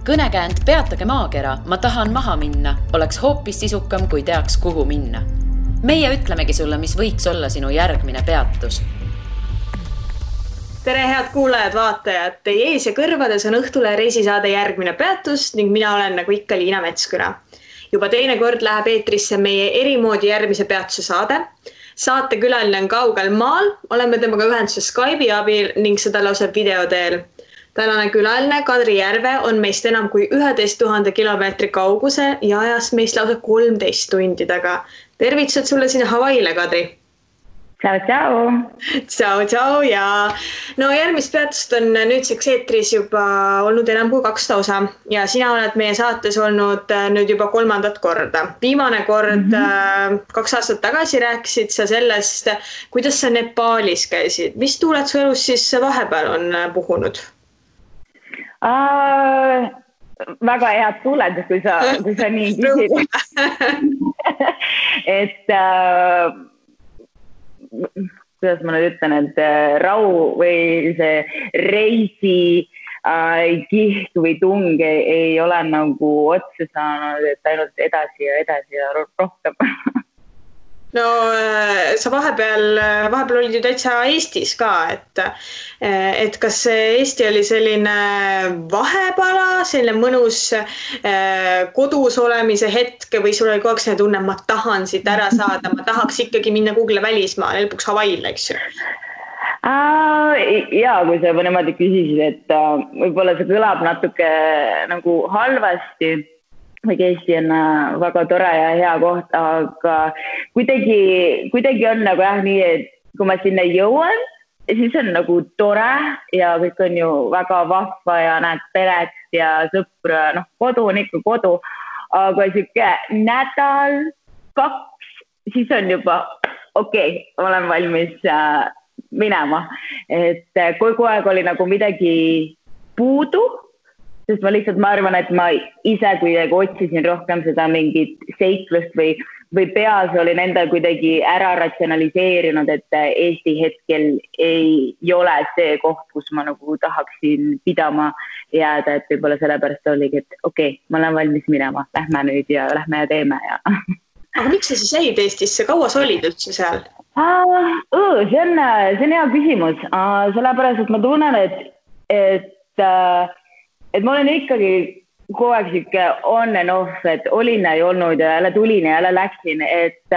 Kõnekäänd Peatage maakera, ma tahan maha minna, oleks hoopis sisukam, kui teaks, kuhu minna. Meie ütlemegi sulle, mis võiks olla sinu järgmine peatus. Tere, head kuulajad, vaatajad! Teie ees ja kõrvades on Õhtule reisisaade järgmine peatus ning mina olen nagu ikka Liina Metsküna. Juba teine kord läheb eetrisse meie erimoodi järgmise peatuse saade. Saate külaline on kaugel maal, oleme temaga ühenduses Skype'i abil ning seda lausa video teel. Tänane külaline Kadri Järve on meist enam kui 11 000 kilomeetri kauguse ja ajas meist lausa 13 tundi taga. Tervitused sulle sinna Hawaiile, Kadri! Ciao, ciao! Ciao, ciao! Ja no järgmist peatust on nüüdseks eetris juba olnud enam kui 2 osa ja sina oled meie saates olnud nüüd juba 3. korda. Viimane kord 2 aastat tagasi rääkisid sa sellest, kuidas sa Nepaalis käisid. Mis tuuled su elus siis vahepeal on puhunud? Väga head tuuled, kui sa nii küsid. Et kuidas ma nüüd ütlen, et rau või see reisi kiht või tung ei ole nagu otsa saanud, et ainult edasi ja rohkem. No sa vahepeal olid ju täitsa Eestis ka, et kas Eesti oli selline vahepala, selline mõnus kodus olemise hetke või sul oli kogu aeg selline tunne, ma tahan siit ära saada, ma tahaks ikkagi minna kuhugile välismaale, lõpuks Hawaiile, eks ju? Jaa, kui sa niimoodi küsisid, et võib-olla see kõlab natuke nagu halvasti, või Eesti on väga tore ja hea koht, aga kuidagi on nagu nii, et kui ma sinna jõuan, siis on nagu tore ja kõik on ju väga vahva ja näed peret ja sõpra, kodu on ikka kodu, aga siuke nädal, 2, siis on juba okei, olen valmis minema, et kogu aeg oli nagu midagi puudu, sest ma arvan, et ma ise kuidagi otsisin rohkem seda mingit seiklust või peas olin endal kuidagi ära ratsionaliseerinud, et Eesti hetkel ei ole see koht, kus ma nagu tahaksin pidama jääda, et võib-olla sellepärast oligi, et okei, ma olen valmis minema, lähme nüüd ja lähme ja teeme. Ja. Aga miks sa siis jäid Eestisse? Kaua sa olid üldse seal? See on hea küsimus, sellepärast, et ma tunnen, et ma olen ikkagi kogu aeg siuke on and off, et olin ja ei olnud ja jälle tulin ja jälle läksin, et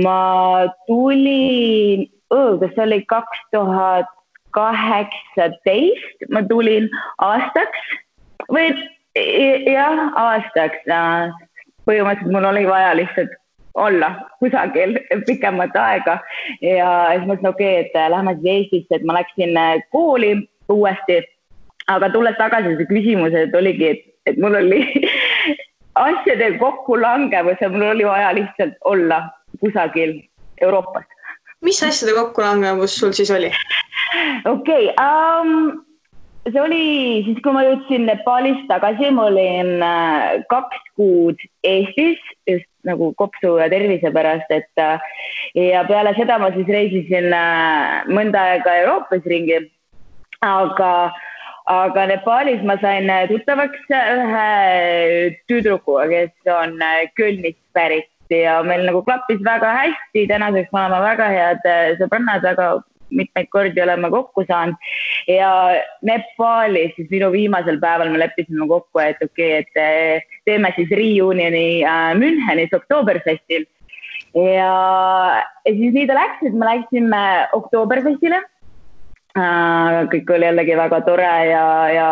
ma tulin, kas see oli 2018, ma tulin aastaks või jah, aastaks. Põhimõtteliselt mul oli vaja lihtsalt olla kusagil pikemat aega ja siis mõtlesin, okei, et lähme siis Eestisse, et ma läksin kooli uuesti. Aga tulles tagasi see küsimus, et oligi, et mul oli asjade kokku langevus ja mul oli vaja lihtsalt olla kusagil Euroopas. Mis asjade kokku langevus sul siis oli? Okei, see oli siis, kui ma jõudsin Nepaalist tagasi, ma olin 2 kuud Eestis, just nagu kopsu ja tervise pärast, ja peale seda ma siis reisisin mõnda aega Euroopas ringi, aga Nepaalis ma sain tuttavaks ühe tüdrukuga, kes on Kölnist pärit ja meil nagu klappis väga hästi, tänaseks me oleme väga head sõbrannad, väga mitmeid kordi oleme kokku saanud ja Nepaalis siis minu viimasel päeval me leppisime kokku, et okei, et teeme siis reunioni Münchenis Oktoberfestil ja siis nii ta läks, et me läksime Oktoberfestile. Kõik oli jällegi väga tore ja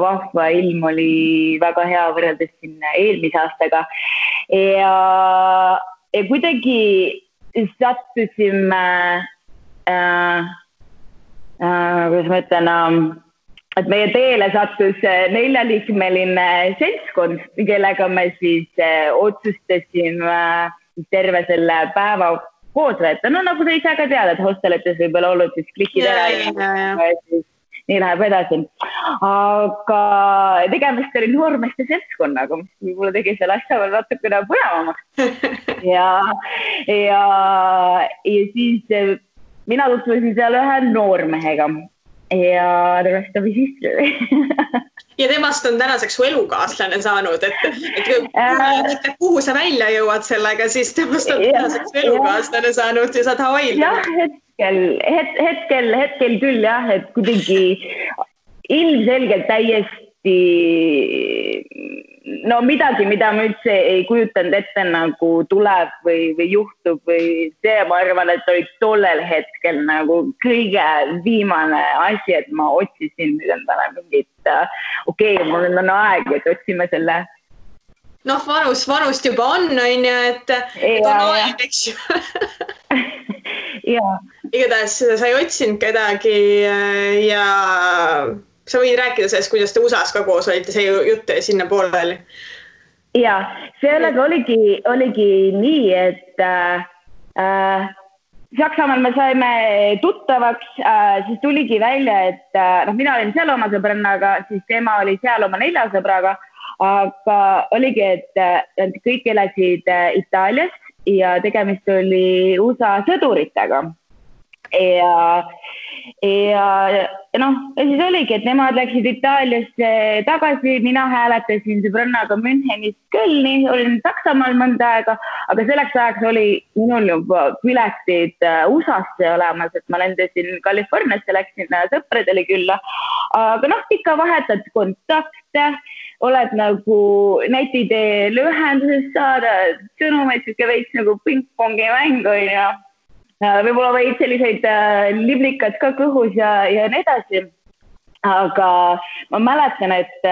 vahva, ilm oli väga hea võrreldes siin eelmise aastaga ja kuidagi sattusime kuidas ma ütlen, et meie teele sattus 4-liikmeline seltskond, kellega me siis otsustasime terve selle päeva koos võtta. No nagu sa ise ka tead, et hostelites võib-olla olnud siis klikid ära ja siis nii läheb edasi. Aga tegemist oli noormeeste seltskonnaga, mis võib-olla tegi selle asja veel natukene põnevamaks. Ja siis mina tutvusin seal ühe noormehega ja the rest of his history. Ja temast on tänaseks su elukaaslane saanud, et kuhu sa välja jõuad sellega, siis temast on tänaseks elukaaslane saanud ja saad Hawaiil. Hetkel küll jah, et kuidagi ilmselgelt täiesti midagi, mida ma üldse ei kujutanud ette nagu tuleb või juhtub või see, ma arvan, et oli tollel hetkel nagu kõige viimane asi, et ma otsisin endale mingit, mul on aeg, et otsime selle. Vanust juba on ju, et on aeg, eks ju. Igatahes sa ei otsinud kedagi ja sa võid rääkida sellest, kuidas te USA-s ka koos olite, see jutt sinna pooleli. Ja, sellega oligi nii, et Saksamaal me saime tuttavaks, siis tuligi välja, et mina olin seal oma sõbrannaga, siis tema oli seal oma 4 sõbraga, aga oligi, et kõik elasid Itaalias ja tegemist oli USA sõduritega. Ja siis oligi, et nemad läksid Itaaliasse tagasi, mina hääletasin sõbrannaga Münchenist Kölni, olin Saksamaal mõnda aega, aga selleks ajaks oli minul juba piletid USA-sse olemas, et ma lendasin Californiasse, läksin sõpradele külla, aga ikka vahetad kontakte, oled nagu netiteel ühenduses saada, sõnumeid veits nagu ping-pongi mängu ja võib-olla võid selliseid liblikad ka kõhus ja nii edasi. Aga ma mäletan, et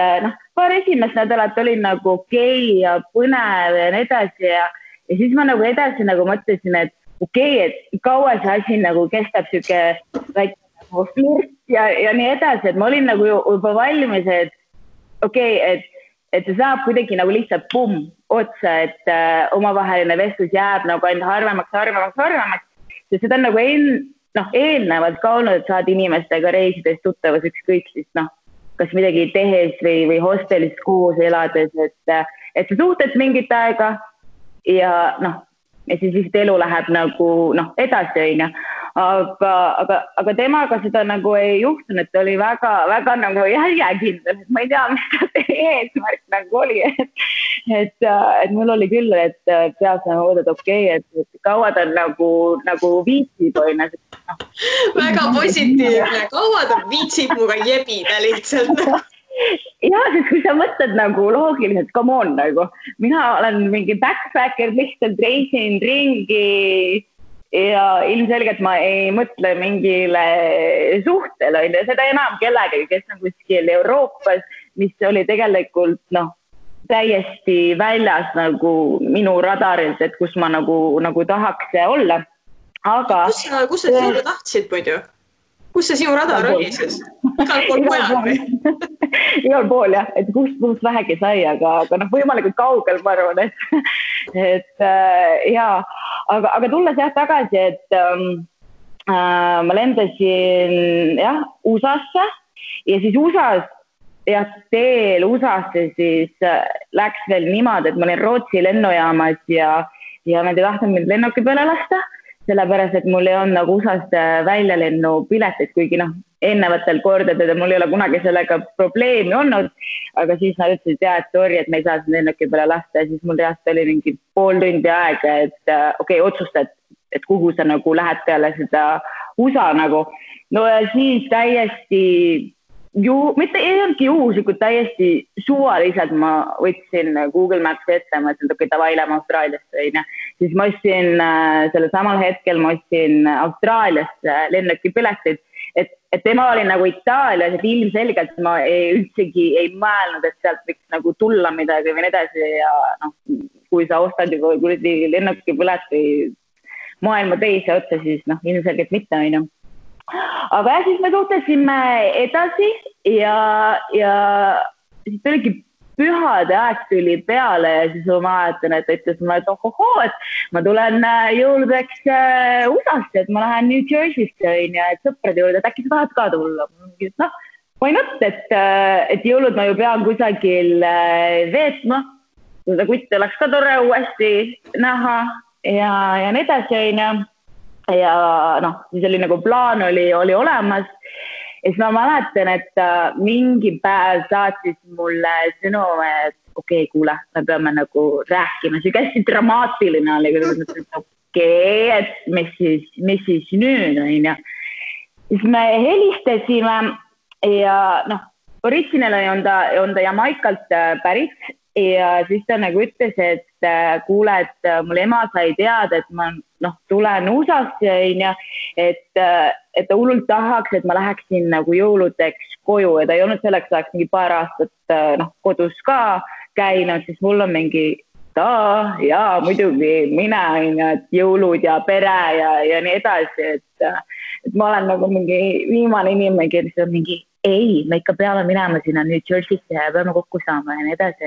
paar esimest nädalat oli nagu okei ja põnev ja nii edasi ja siis ma nagu edasi nagu mõtlesin, et et kaua see asi nagu kestab siuke väike nagu flirt ja nii edasi, et ma olin nagu juba valmis, et et see saab kuidagi nagu lihtsalt otsa, et omavaheline vestlus jääb nagu ainult harvemaks. Ja seda on nagu eelnevalt ka olnud, et saad inimestega reisides tuttavas ükskõik siis kas midagi tehes või hostelis koos elades, et sa suhted mingit aega ja siis vist elu läheb nagu edasi õige. Aga temaga seda nagu ei juhtunud, et oli väga nagu järjekindel, et ma ei tea, mis ta eesmärk nagu oli, et mul oli küll, et peas nagu mõõdad et kaua ta nagu viitsib või väga positiivne, kaua ta viitsib muga jebida lihtsalt. Ja, sest kui sa mõtled nagu loogiliselt, come on nagu, mina olen mingi backpacker, lihtsalt reisin ringi ja ilmselgelt ma ei mõtle mingile suhtele, seda enam kellegagi, kes on kuskil Euroopas, mis oli tegelikult täiesti väljas nagu minu radarilt, et kus ma nagu tahaks olla. Aga kus sa sinu tahtsid muidu? Kus see sinu radar oli siis? Igal pool mujal või? Igal pool jah, et kust vähegi sai, aga võimalikult kaugel ma arvan, et jaa. Aga tulles jah tagasi, et ma lendasin USA-sse ja siis USA-s teel USA-sse siis läks veel niimoodi, et ma olin Rootsi lennujaamas ja nad ei tahtnud mind lennuki peale lasta, sellepärast, et mul ei olnud nagu USA-st väljalennu piletit, kuigi eelnevatel kordadel mul ei ole kunagi sellega probleemi olnud, aga siis nad ütlesid, et sorry, et me ei saa seda lennuki peale lasta ja siis mul reaalselt oli mingi pool tundi aega, et otsustad, et kuhu sa nagu lähed peale seda USA nagu. No ja siis täiesti mitte ei olnudki juhuslikult, täiesti suvaliselt ma võtsin Google Maps ette, ma ütlesin, et davai, lähme Austraaliasse. Siis ma ostsin selle samal hetkel, ma ostsin Austraaliasse lennuki piletid, et tema oli nagu Itaalias, et ilmselgelt ma üldsegi ei mõelnud, et sealt võiks nagu tulla midagi või nii edasi ja kui sa ostad juba lennuki pileti maailma teise otsa, siis ilmselgelt mitte on ju. Aga siis me suhtlesime edasi ja siis tuligi pühade aeg tuli peale ja siis ma mäletan, et ütles mulle, et et ma tulen jõuludeks USA-sse, et ma lähen New Jersey'sse ja et sõprade juurde, et äkki sa tahad ka tulla. Why not, et jõulud ma ju pean kusagil veetma, seda kutte oleks ka tore uuesti näha ja nii edasi. Ja siis oli nagu plaan oli olemas siis ma mäletan, et mingi päev saatis mulle sõnum, et okei, kuule, me peame nagu rääkima. See hästi dramaatiline oli, kui et mis siis nüüd on, ja siis me helistasime ja original on ta Jamaikalt pärit ja siis ta nagu ütles, et kuule, et mul ema sai teada, et ma tulen USA-sse, et ta hullult tahaks, et ma läheksin nagu jõuludeks koju ja ta ei olnud selleks ajaks mingi paar aastat kodus ka käinud, siis mul on mingi jaa, muidugi mina, et jõulud ja pere ja nii edasi, et ma olen nagu mingi viimane inimene, kes on mingi ei, me ikka peame minema sinna New Jersey'sse ja peame kokku saama ja nii edasi,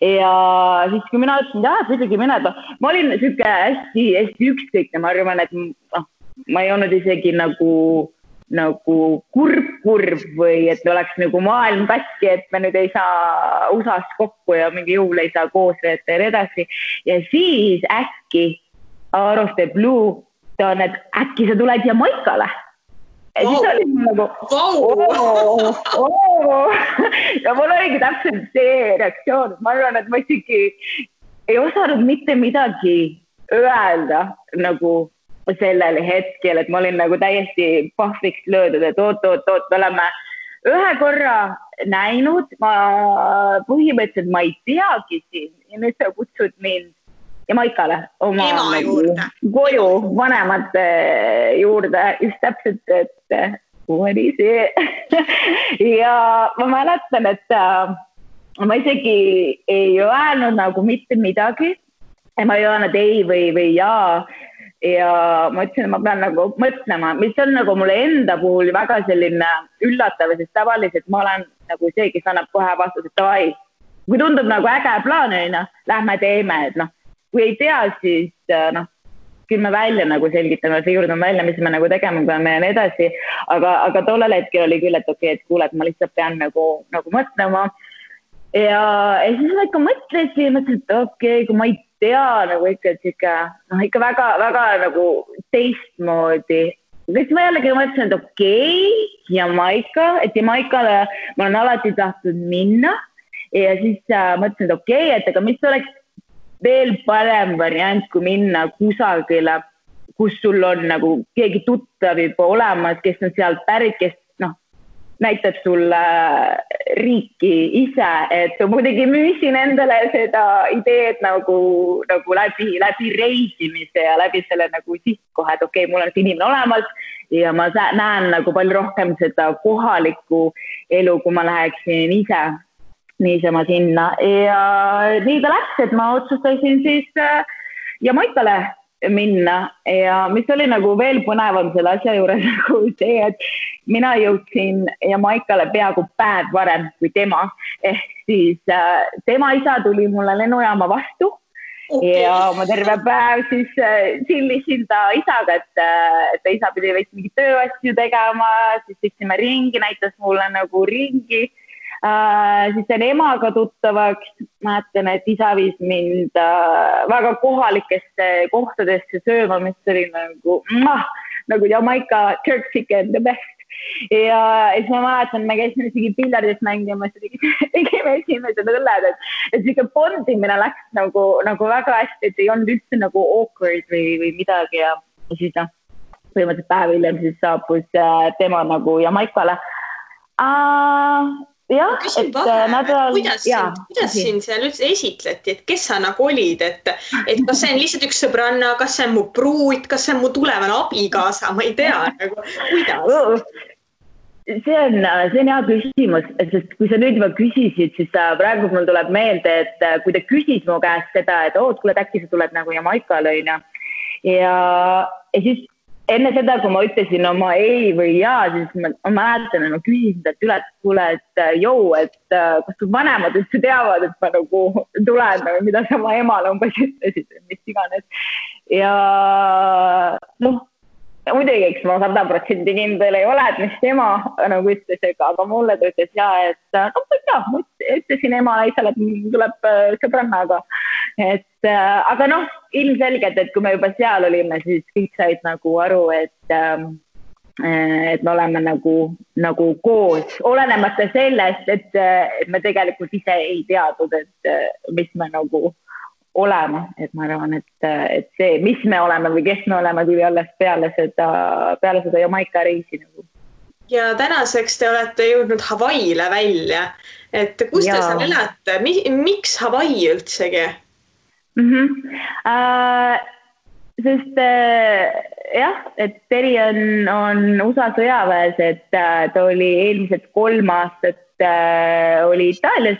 ja siis, kui mina ütlesin, muidugi mine, ma olin siuke hästi ükskõikne, ma arvan, et ma ei olnud isegi nagu kurb või et oleks nagu maailm katki, et me nüüd ei saa USA-s kokku ja mingi jõul ei saa koos veeta ja nii edasi. Ja siis äkki out of the blue ta on, et äkki sa tuled Jamaikale. Ja siis oli nagu ja mul oligi täpselt see reaktsioon. Ma arvan, et ma isegi ei osanud mitte midagi öelda nagu sellel hetkel, et ma olin nagu täiesti pahviks löödud, et oot, me oleme ühe korra näinud, ma põhimõtteliselt ma ei teagi siin ja nüüd sa kutsud mind Jamaikale oma koju vanemate juurde, just täpselt, et oli see. Ja ma mäletan, et ma isegi ei öelnud nagu mitte midagi, ma ei öelnud ei või jaa. Ja ma ütlesin, et ma pean nagu mõtlema, mis on nagu mulle enda puhul väga selline üllatav, sest tavaliselt ma olen nagu see, kes annab kohe vastus, et davai. Kui tundub nagu äge plaan, lähme teeme, et kui ei tea, siis küll me välja nagu selgitame, siurdame välja, mis me nagu tegema peame ja nii edasi. Aga tollel hetkel oli küll, et okei, et kuule, et ma lihtsalt pean nagu mõtlema. Ja siis ma ikka mõtlesin, et okei, kui ma ei tea nagu ikka väga nagu teistmoodi. Siis ma jällegi mõtlesin, et okei, Jamaika, et Jamaikale ma olen alati tahtnud minna. Ja siis mõtlesin, et okei, et aga mis oleks veel parem variant, kui minna kusagile, kus sul on nagu keegi tuttav juba olemas, kes on sealt pärit, kes näitab sulle riiki ise, et muidugi müüsin endale seda ideed nagu läbi reisimise ja läbi selle nagu sihtkoha, et okei, mul on see inimene olemas ja ma näen nagu palju rohkem seda kohalikku elu, kui ma läheksin ise niisama sinna. Ja nii ta läks, et ma otsustasin siis Jamaikale minna ja mis oli nagu veel põnevam selle asja juures nagu see, et mina jõudsin Jamaikale peaaegu päev varem kui tema, ehk siis tema isa tuli mulle lennujaama vastu ja ma terve päev siis chillisin ta isaga, et isa pidi veits mingi tööasju tegema, siis sõitsime ringi, näitas mulle nagu ringi. Siis on emaga tuttavaks, mäletan, et isa viis mind väga kohalikesse kohtadesse sööma, mis oli nagu Jamaica jerk chicken the best. Ja siis ma mäletan, me käisime isegi piljardis mängimas, tegime esimesed õlled, et siuke bondimine läks nagu väga hästi, et ei olnud üldse nagu awkward või midagi ja siis põhimõtteliselt päev hiljem siis saabus tema nagu Jamaikale. Jah, küsin kuidas siin seal üldse esitleti, et kes sa nagu olid, et kas see on lihtsalt üks sõbranna, kas see on mu pruut, kas see on mu tulevane abikaasa, ma ei tea, nagu kuidas? See on hea küsimus, sest kui sa nüüd juba küsisid, siis praegu mul tuleb meelde, et kui ta küsis mu käest seda, et kuule, äkki sa tuled nagu Jamaikale ja siis enne seda, kui ma ütlesin oma ei või jaa, siis ma mäletan, et ma küsisin talt üle, et kuule, et kas su vanemad üldse teavad, et ma nagu tulen, mida sa oma emale umbes ütlesid, mis iganes. Ja muidugi, eks ma 100% kindel ei ole, et mis tema nagu ütles, aga mulle ta ütles jaa, et ma ütlesin emale isale, et tuleb sõbrannaga. Aga ilmselgelt, et kui me juba seal olime, siis kõik said nagu aru, et et me oleme nagu koos, olenemata sellest, et me tegelikult ise ei teadnud, et mis me nagu olema, et ma arvan, et see, mis me oleme või kes me oleme, tuli alles peale seda Jamaica reisi nagu. Ja tänaseks te olete jõudnud Hawaii'le välja, et kus te seal elate, miks Hawaii üldsegi? Sest jah, et Teri on USA sõjaväes, et ta oli eelmised 3 aastat oli Itaalias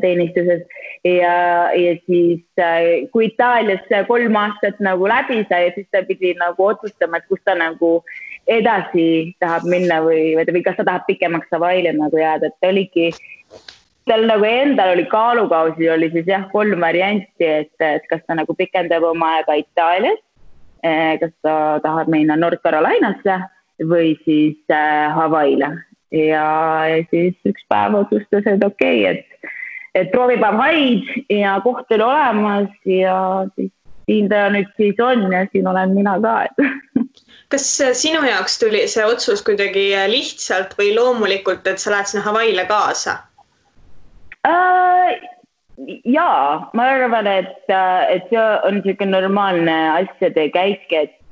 teenistuses ja siis kui Itaalias 3 aastat nagu läbi sai, siis ta pidi nagu otsustama, et kus ta nagu edasi tahab minna või kas ta tahab pikemaks Hawaii'le nagu jääda, et ta oligi, tal nagu endal oli kaalukausi, oli siis jah 3 varianti, et kas ta nagu pikendab oma aega Itaalias, kas ta tahab minna North Carolinasse või siis Hawaii'le ja siis üks päev otsustas, et okei, et proovib Hawaii'd ja koht oli olemas ja siis siin ta nüüd siis on ja siin olen mina ka. Kas sinu jaoks tuli see otsus kuidagi lihtsalt või loomulikult, et sa lähed sinna Hawaii'le kaasa? Jaa, ma arvan, et see on niisugune normaalne asjade käik, et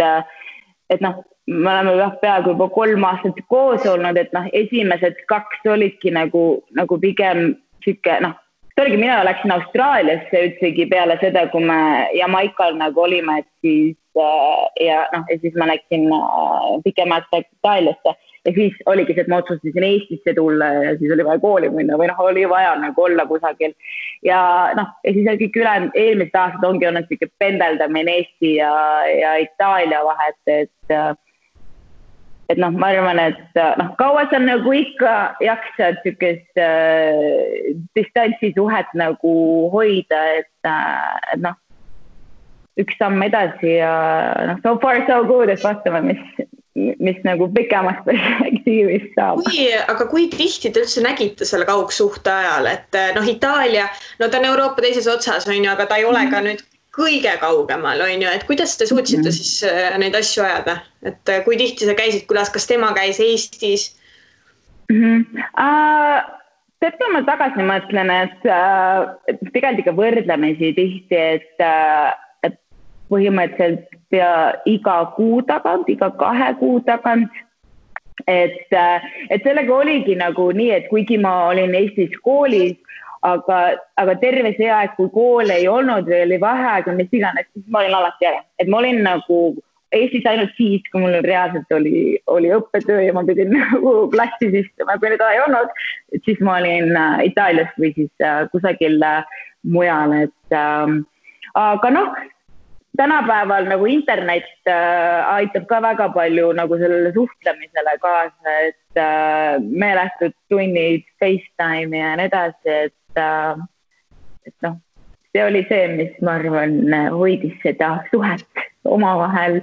noh, me oleme peaaegu juba 3 aastat koos olnud, et noh, esimesed 2 olidki nagu pigem siuke, noh, tõlgi mina läksin Austraaliasse üldsegi peale seda, kui me Jamaical nagu olime, et siis ja siis ma läksin pikemalt Itaaliasse ja siis oligi see, et ma otsustasin Eestisse tulla ja siis oli vaja kooli minna või oli vaja nagu olla kusagil ja ja siis kõik eelmised aastad ongi olnud siuke pendeldamine Eesti ja Itaalia vahet, et ma arvan, et kaua sa nagu ikka jaksad siukest distantsisuhet nagu hoida, et üks samm edasi ja so far so good, et vastame, mis nagu pikemast perspektiivist saab. Aga kui tihti te üldse nägite selle kaugsuhte ajal, et Itaalia, ta on Euroopa teises otsas, aga ta ei ole ka nüüd kõige kaugemal, et kuidas te suutsite siis neid asju ajada? Et kui tihti sa käisid, kas tema käis Eestis? Tead, kui ma tagasi mõtlen, et tegelikult ikka võrdlemisi tihti, et põhimõtteliselt iga kuu tagant, iga 2 kuu tagant, et sellega oligi nagu nii, et kuigi ma olin Eestis koolis, aga terve see aeg, kui kool ei olnud või oli vaheaeg või mis iganes, siis ma olin alati ära. Et ma olin nagu Eestis ainult siis, kui mul reaalselt oli õppetöö ja ma pidin nagu klassis istuma, kui nüüd ei olnud, siis ma olin Itaalias või siis kusagil mujal. Aga tänapäeval nagu internet aitab ka väga palju nagu sellele suhtlemisele kaasa, et meeletud tunnid, FaceTime ja nii edasi, et see oli see, mis ma arvan hoidis seda suhet omavahel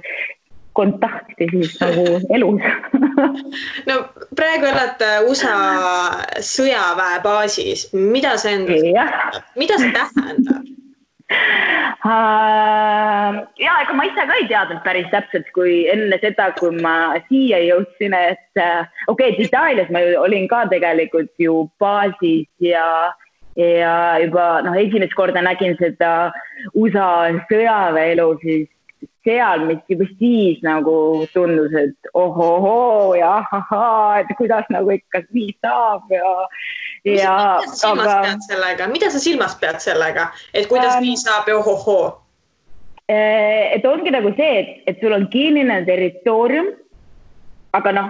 kontakti siis nagu elus. Praegu olete USA sõjaväebaasis. Mida see tähendab? Ja ega ma ise ka ei teadnud päris täpselt, kui enne seda, kui ma siia jõudsin, et okei, Itaalias ma olin ka tegelikult ju baasis ja juba esimest korda nägin seda USA sõjaväelu siis seal, mis juba siis nagu tundus, et ohohoo ja ahahaa, et kuidas nagu ikka nii saab Mida sa silmas pead sellega, et kuidas nii saab ja ohohoo? Et ongi nagu see, et sul on kinnine territoorium, aga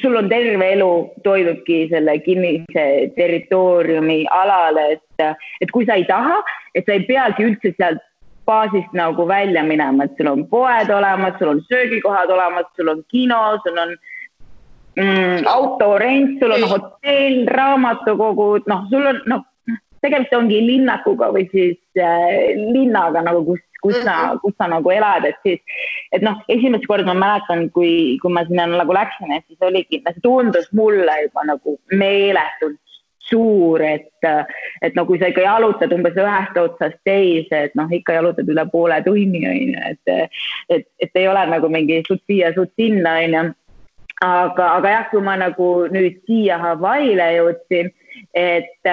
sul on terve elu toidubki selle kinnise territooriumi alale, et kui sa ei taha, et sa ei peagi üldse sealt baasist nagu välja minema, et sul on poed olemas, sul on söögikohad olemas, sul on kino, sul on autorent, sul on hotell, raamatukogud, sul on, tegelikult ongi linnakuga või siis linnaga nagu, kus sa nagu elad, et siis, et esimest korda ma mäletan, kui ma sinna nagu läksin, et siis oligi, see tundus mulle juba nagu meeletult suur, et kui sa ikka jalutad umbes ühest otsast teise, et ikka jalutad üle poole tunni, et ei ole nagu mingi suud siia, suud sinna, aga jah, kui ma nagu nüüd siia Hawaii'le jõudsin, et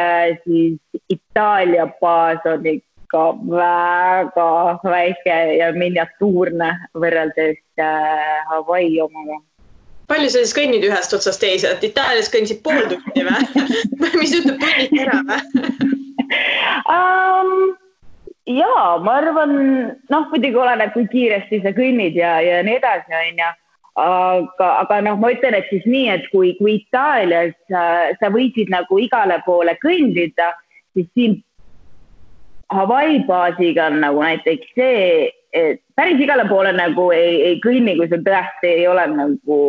siis Itaalia baas on ikka väga väike ja miniatuurne võrreldes Hawaii omaga. Palju sa siis kõnnid ühest otsast teise, et Itaalias kõndisid pool tundi või? Mis ütleb tunnid ära või? Jaa, ma arvan, muidugi oleneb, kui kiiresti sa kõnnid ja nii edasi, on ja. Aga ma ütlen, et siis nii, et kui Itaalias sa võisid nagu igale poole kõndida, siis siin Hawaii baasiga on nagu näiteks see, et päris igale poole nagu ei kõnni, kui sul tõesti ei ole nagu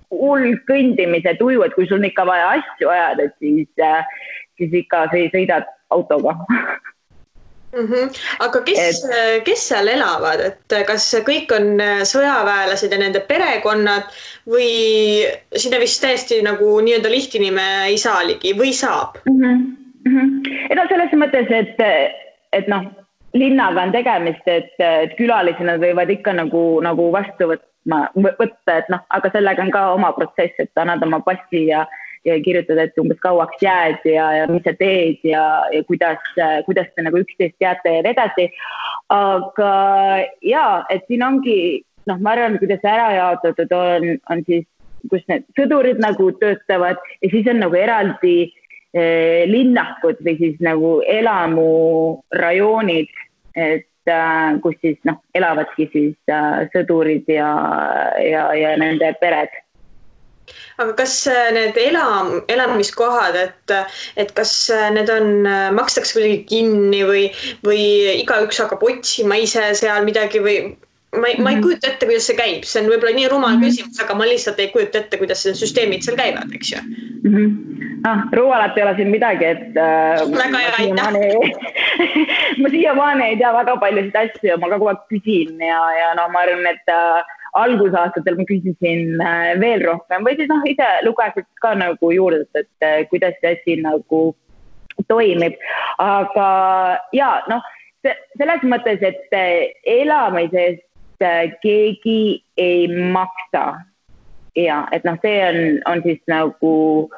hull kõndimise tuju, et kui sul on ikka vaja asju ajada, siis ikka sõidad autoga. Aga kes seal elavad, et kas kõik on sõjaväelased ja nende perekonnad või sinna vist täiesti nagu nii-öelda lihtinime ei saa ligi või saab? Selles mõttes, et linnaga on tegemist, et külalisi nad võivad ikka nagu vastu võtta, et aga sellega on ka oma protsess, et annad oma passi ja kirjutad, et umbes kauaks jääd ja mis sa teed ja kuidas te nagu üksteist teate ja edasi. Aga jaa, et siin ongi, ma arvan, kuidas ära jaotatud on siis, kus need sõdurid nagu töötavad ja siis on nagu eraldi linnakud või siis nagu elamurajoonid, et kus siis elavadki siis sõdurid ja nende pered. Aga kas need elamiskohad, et kas need makstakse kuidagi kinni või igaüks hakkab otsima ise seal midagi või ma ei kujuta ette, kuidas see käib. See on võib-olla nii rumal küsimus, aga ma lihtsalt ei kujuta ette, kuidas need süsteemid seal käivad, eks ju? Rumalat ei ole siin midagi, et väga hea, aitäh. Ma siiamaani ei tea väga paljusid asju ja ma kogu aeg küsin ja ma arvan, et algusaastatel ma küsisin veel rohkem või siis ise lugesid ka nagu juurde, et kuidas see asi nagu toimib. Aga jaa, selles mõttes, et elamisest keegi ei maksa. Ja, et see on siis nagu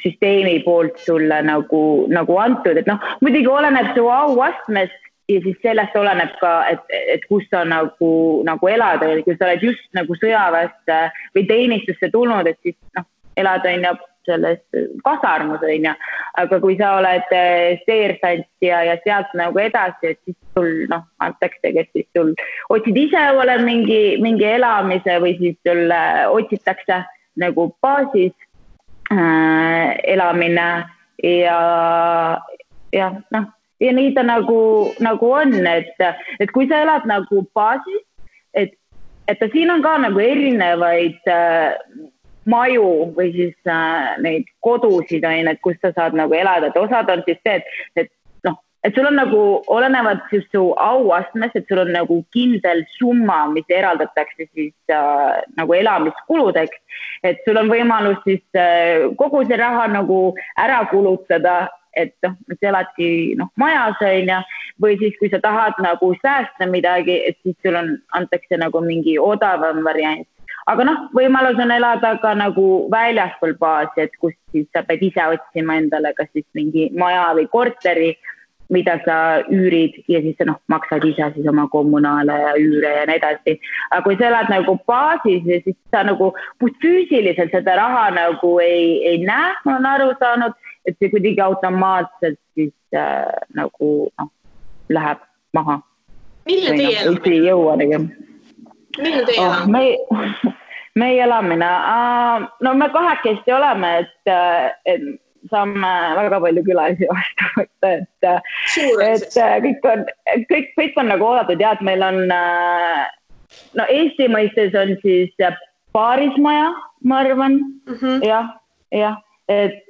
süsteemi poolt sulle nagu antud, et muidugi oleneb su auastmest ja siis sellest oleneb ka, et kus sa nagu elad, kui sa oled just nagu sõjaväest või teenistusse tulnud, et siis elad on ja selles kasarmus on ja, aga kui sa oled seersant ja sealt nagu edasi, et siis sul antakse, kes siis sul otsid ise ole mingi elamise või siis sul otsitakse nagu baasis elamine ja nii ta nagu on, et kui sa elad nagu baasis, et siin on ka nagu erinevaid maju või siis neid kodusid on, et kus sa saad nagu elada, et osad on siis see, et sul on nagu olenevad siis su auastmes, et sul on nagu kindel summa, mis eraldatakse siis nagu elamiskuludeks, et sul on võimalus siis kogu see raha nagu ära kulutada, et sa eladki majas on ja, või siis kui sa tahad nagu säästa midagi, et siis sul antakse nagu mingi odavam variant. Aga võimalus on elada ka nagu väljaspool baasi, et kus siis sa pead ise otsima endale kas siis mingi maja või korteri, mida sa üürid ja siis sa maksad ise siis oma kommunaale ja üüre ja nii edasi. Aga kui sa elad nagu baasis ja siis sa nagu füüsiliselt seda raha nagu ei näe, ma olen aru saanud, et see kuidagi automaatselt siis nagu läheb maha. Milline teie elamine? Ei jõua tegema. Milline teie elamine? Meie elamine? Me kahekesti oleme, et saame väga palju külalisi vastu võtta, et kõik on nagu oodatud ja, et meil on Eesti mõistes on siis paarismaja, ma arvan, jah, et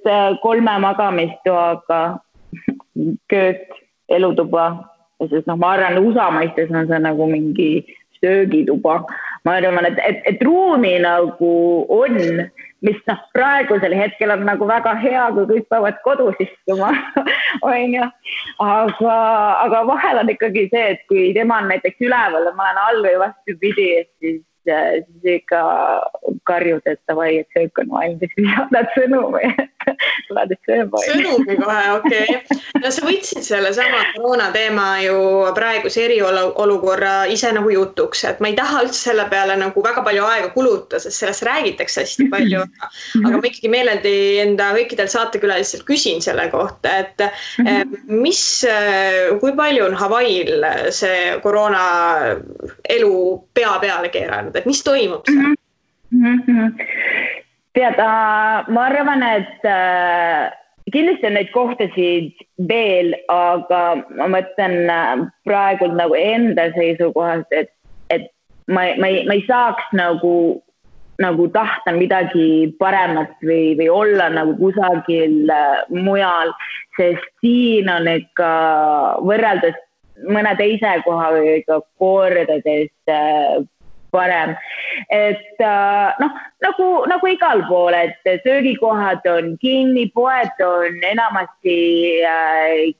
3 magamistoaga köök, elutuba ja siis ma arvan, USA mõistes on see nagu mingi söögituba. Ma arvan, et ruumi nagu on, mis praegusel hetkel on nagu väga hea, kui kõik peavad kodus istuma, on ju. Aga vahel on ikkagi see, et kui tema on näiteks üleval ja ma olen all või vastupidi, siis siis ikka karjud, et davai, et söök on valmis, saadad sõnumi, tuled sööma. Sõnumi kohe, okei. No sa võtsid selle sama koroona teema ju praeguse eriolukorra ise nagu jutuks, et ma ei taha üldse selle peale nagu väga palju aega kuluta, sest sellest räägitakse hästi palju, aga ma ikkagi meeleldi enda kõikidel saatekülaliselt küsin selle kohta, et kui palju on Hawaii'l see koroona elu pea peale keeranud, et mis toimub seal? Tead, ma arvan, et kindlasti on neid kohtasid veel, aga ma mõtlen praegu nagu enda seisukohast, et ma ei saaks nagu tahta midagi paremat või olla nagu kusagil mujal, sest siin on ikka võrreldes mõne teise koha või ikka kordades parem. Et nagu igal pool, et söögikohad on kinni, poed on enamasti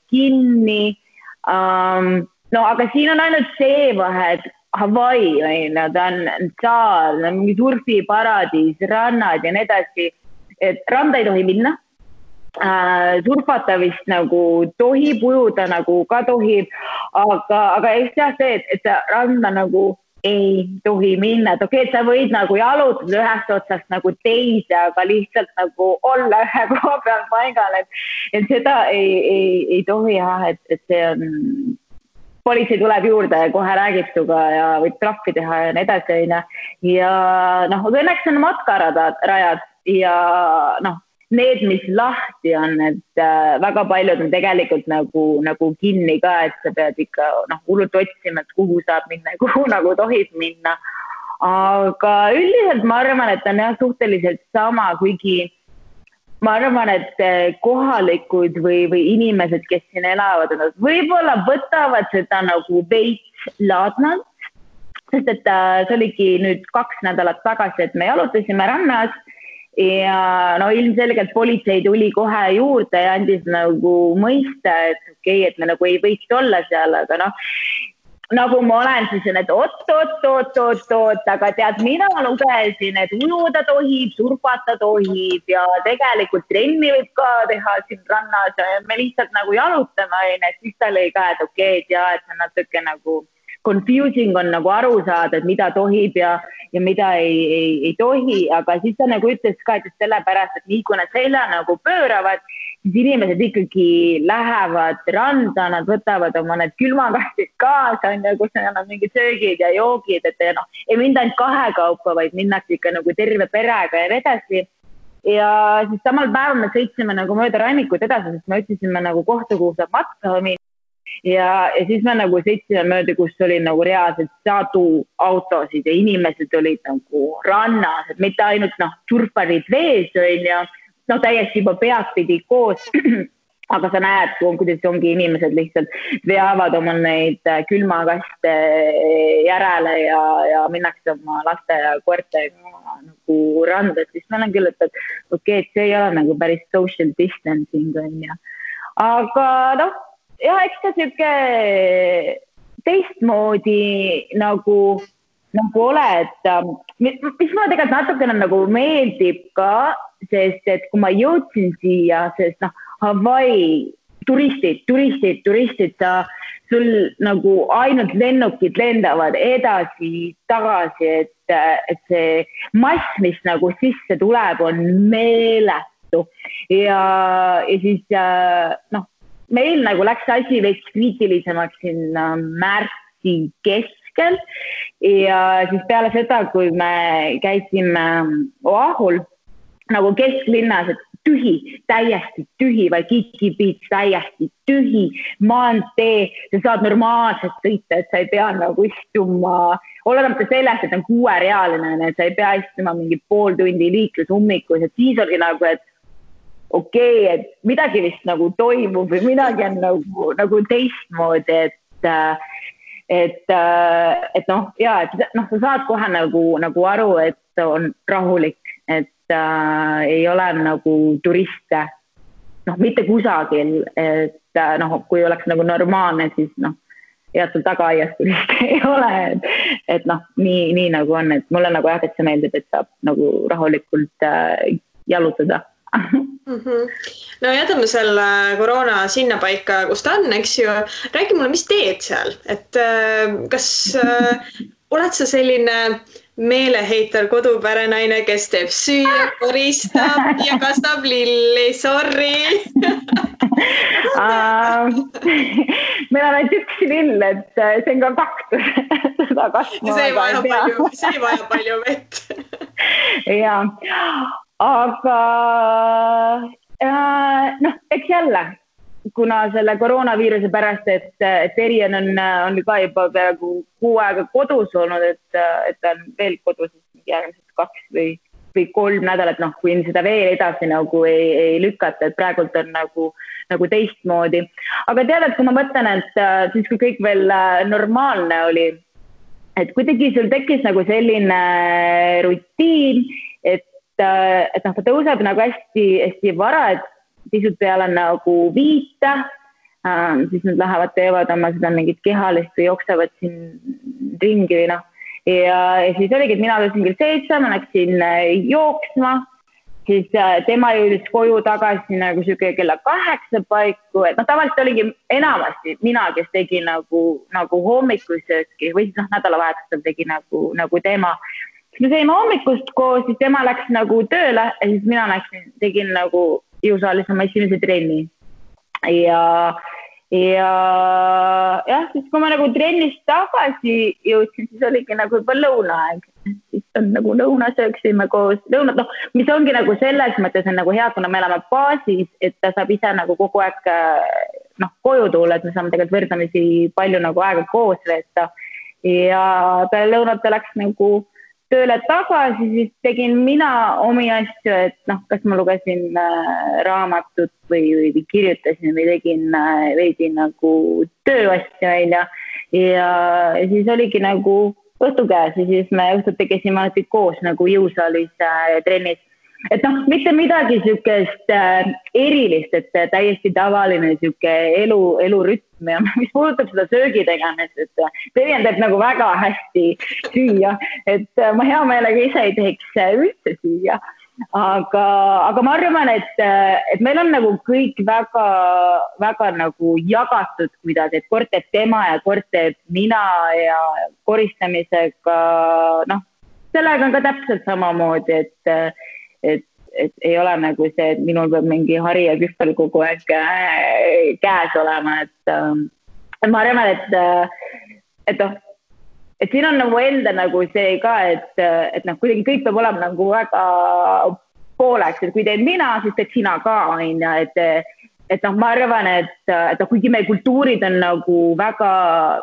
kinni. No aga siin on ainult see vahe, et Hawaii, ta on saar, mingi surfiparadiis, rannad ja nii edasi, et randa ei tohi minna. Surfata vist nagu tohib, ujuda nagu ka tohib, aga just jah see, et randa nagu ei tohi minna, et okei, et sa võid nagu jalutada ühest otsast nagu teise, aga lihtsalt nagu olla ühe koha peal paigal, et seda ei tohi jah, et see on, politsei tuleb juurde ja kohe räägib suga ja võib trahvi teha ja nii edasi, ja õnneks on matkarajad ja need, mis lahti on, et väga paljud on tegelikult nagu kinni ka, et sa pead ikka hullult otsima, et kuhu saab minna ja kuhu nagu tohib minna. Aga üldiselt ma arvan, et on jah suhteliselt sama, kuigi ma arvan, et kohalikud või inimesed, kes siin elavad, võib-olla võtavad seda nagu veits laadnalt, sest et see oligi nüüd 2 nädalat tagasi, et me jalutasime rannas. Ja ilmselgelt politsei tuli kohe juurde ja andis nagu mõista, et okei, et me nagu ei võiks olla seal, aga nagu ma olen siis, et oot, aga tead, mina lugesin, et ujuda tohib, surfata tohib ja tegelikult trenni võib ka teha siin rannas ja me lihtsalt nagu jalutame, et siis ta lõi ka, et okei, et jah, et see natuke nagu confusing on nagu aru saada, et mida tohib ja mida ei tohi, aga siis ta nagu ütles ka, et sellepärast, et nii kui nad selja nagu pööravad, siis inimesed ikkagi lähevad randa, nad võtavad oma need külmakastid kaasa, kus neil on mingid söögid ja joogid, et ei minda ainult 2 kaupa, vaid minnakse ikka nagu terve perega ja edasi. Ja siis samal päeval me sõitsime nagu mööda rannikut edasi, sest me otsisime nagu kohta, kuhu saab matka minna. Ja siis me nagu sõitsime mööda, kus oli nagu reaalselt sadu autosid ja inimesed olid nagu rannas, et mitte ainult surfarid vees ja täiesti juba peadpidi koos, aga sa näed, kuidas ongi inimesed lihtsalt veavad oma neid külmakaste järele ja minnakse oma laste ja koertega nagu randa, siis ma olen küll, et okei, et see ei ole nagu päris social distancing ja. Aga jah, eks ta siuke teistmoodi nagu ole, et mis mulle tegelikult natukene nagu meeldib ka, sest et kui ma jõudsin siia, sest Hawaii turistid, sul nagu ainult lennukid lendavad edasi, tagasi, et see mass, mis nagu sisse tuleb, on meeletu ja siis meil nagu läks asi veits kriitilisemaks siin märtsi keskel ja siis peale seda, kui me käisime Oahul nagu kesklinnas, et täiesti tühi, Waikiki Beach täiesti tühi, maantee, sa saad normaalselt sõita, et sa ei pea nagu istuma, olemata sellest, et on 6-realine, et sa ei pea istuma mingi pool tundi liiklusummikus, et siis oli nagu, et okei, et midagi vist nagu toimub või midagi on nagu teistmoodi, et sa saad kohe nagu aru, et on rahulik, et ei ole nagu turiste, mitte kusagil, et kui oleks nagu normaalne, siis ja sul tagaaias vist ei ole, et noh, nii nagu on, et mulle nagu jah, et see meeldib, et saab nagu rahulikult jalutada. No jätame selle koroona sinna paika, kus ta on, eks ju. Räägi mulle, mis teed seal, et kas oled sa selline meeleheitel kodupärenaine, kes teeb süüa, koristab ja kastab lilli, sorry. Meil on ainult üks lill, et see on ka kaktus. See ei vaja palju vett. Ja, aga noh, eks jälle, kuna selle koroonaviiruse pärast, et Erian on ka juba peaaegu 6 aega kodus olnud, et ta on veel kodus järgmised 2 või 3 nädalat, noh, kui seda veel edasi nagu ei lükata, et praegult on nagu teistmoodi. Aga tead, et kui ma mõtlen, et siis kui kõik veel normaalne oli, et kuidagi sul tekkis nagu selline rutiin, et noh, ta tõuseb nagu hästi vara, et pisut peale nagu 5, siis nad lähevad, teevad oma seda mingit kehalist või jooksevad siin ringi või noh. Ja siis oligi, et mina tõusin kell 7, ma läksin jooksma, siis tema jõudis koju tagasi nagu siuke kella 8 paiku, et noh, tavaliselt oligi enamasti mina, kes tegi nagu hommikusööki või siis noh, nädalavahetusel tegi nagu tema. Siis me saime hommikust koos, siis tema läks nagu tööle ja siis mina tegin nagu jõusaalis oma esimese trenni. Ja jah, siis kui ma nagu trennist tagasi jõudsin, siis oligi nagu juba lõunaaeg. Siis on nagu lõuna sööksime koos. Lõunad, noh, mis ongi nagu selles mõttes on nagu hea, kuna me elame baasis, et ta saab ise nagu kogu aeg koju tulla, et me saame tegelikult võrdamisi palju nagu aega koos veeta. Ja peale lõunat läks nagu tööle tagasi, siis tegin mina omi asju, et noh, kas ma lugesin raamatut või kirjutasin või tegin veidi nagu tööasju välja ja siis oligi nagu õhtu käes ja siis me õhtut tegesime koos nagu jõusaalis trennis. Et noh, mitte midagi sükest erilist, et täiesti tavaline süke elurütm ja mis puudutab seda söögi tegemist, et Terjen teeb nagu väga hästi süüa, et ma hea meelega ise ei teeks üldse süüa, aga ma arvan, et meil on nagu kõik väga nagu jagatud kuidagi, et kord teeb tema ja kord teeb mina ja koristamisega, noh, sellega on ka täpselt samamoodi, et ei ole nagu see, et minul peab mingi hari ja kühvel kogu aeg käes olema, et ma arvan, et siin on nagu enda nagu see ka, et noh, kuidagi kõik peab olema nagu väga pooleks, et kui teed mina, siis teed sina ka, et noh, ma arvan, et kuigi meie kultuurid on nagu väga,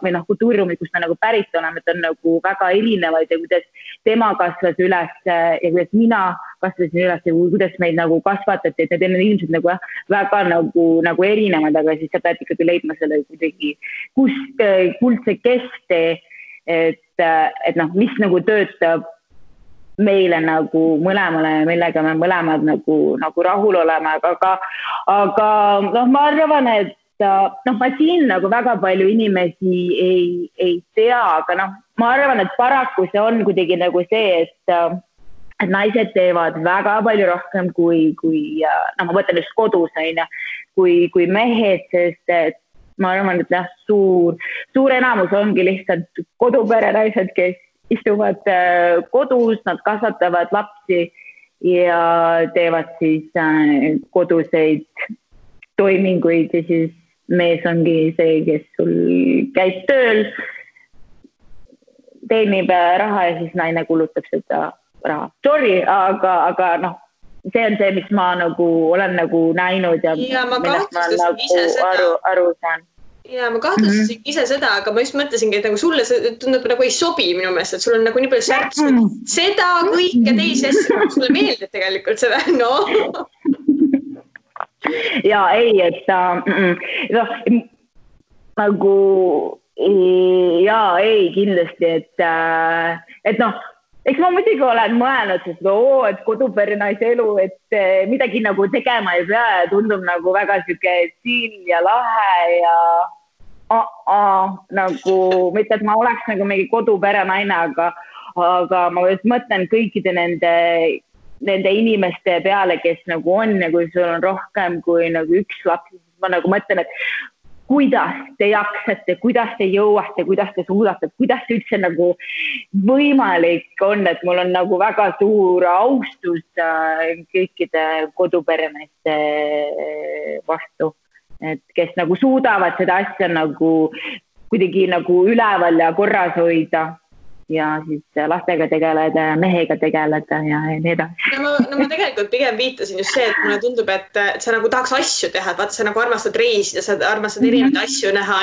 või noh, kultuuriruumid, kus me nagu pärit oleme, et on nagu väga erinevaid ja kuidas tema kasvas üles ja kuidas mina kasvasin üles ja kuidas meid nagu kasvatati, et need on ilmselt nagu väga nagu erinevad, aga siis sa pead ikkagi leidma selle kuidagi kuldse kesktee, et noh, mis nagu töötab meile nagu mõlemale, millega me mõlemad nagu rahul oleme, aga noh, ma arvan, et noh, ma siin nagu väga palju inimesi ei tea, aga noh, ma arvan, et paraku see on kuidagi nagu see, et naised teevad väga palju rohkem kui noh, ma mõtlen just kodus, kui mehed, sest et ma arvan, et jah, suur enamus ongi lihtsalt koduperenaised, kes istuvad kodus, nad kasvatavad lapsi ja teevad siis koduseid toiminguid ja siis mees ongi see, kes sul käib tööl, teenib raha ja siis naine kulutab seda raha. Sorry, aga noh, see on see, mis ma nagu olen nagu näinud ja ma millest ma nagu aru saan. Ja ma kahtlustasin ise seda, aga ma just mõtlesingi, et nagu sulle see tundub nagu ei sobi minu meelest, et sul on nagu nii palju särtsu. Seda kõike teisi asju, sulle meeldib tegelikult seda, no. Ja ei, et nagu ei kindlasti, et noh, eks ma muidugi olen mõelnud, et koduperenaise elu, et midagi nagu tegema ei pea ja tundub nagu väga siuke chill ja lahe nagu mitte, et ma oleks nagu mingi kodupere naine, aga ma just mõtlen kõikide nende inimeste peale, kes nagu on ja kui sul on rohkem kui nagu üks laps, siis ma nagu mõtlen, et kuidas te jaksate, kuidas te jõuate, kuidas te suudate, kuidas see üldse nagu võimalik on, et mul on nagu väga suur austus kõikide koduperemeeste vastu, et kes nagu suudavad seda asja nagu kuidagi nagu üleval ja korras hoida ja siis lastega tegeleda ja mehega tegeleda ja nii edasi. No ma tegelikult pigem viitasin just see, et mulle tundub, et sa nagu tahaks asju teha, et vaata, sa nagu armastad reisida, sa armastad erinevaid asju näha,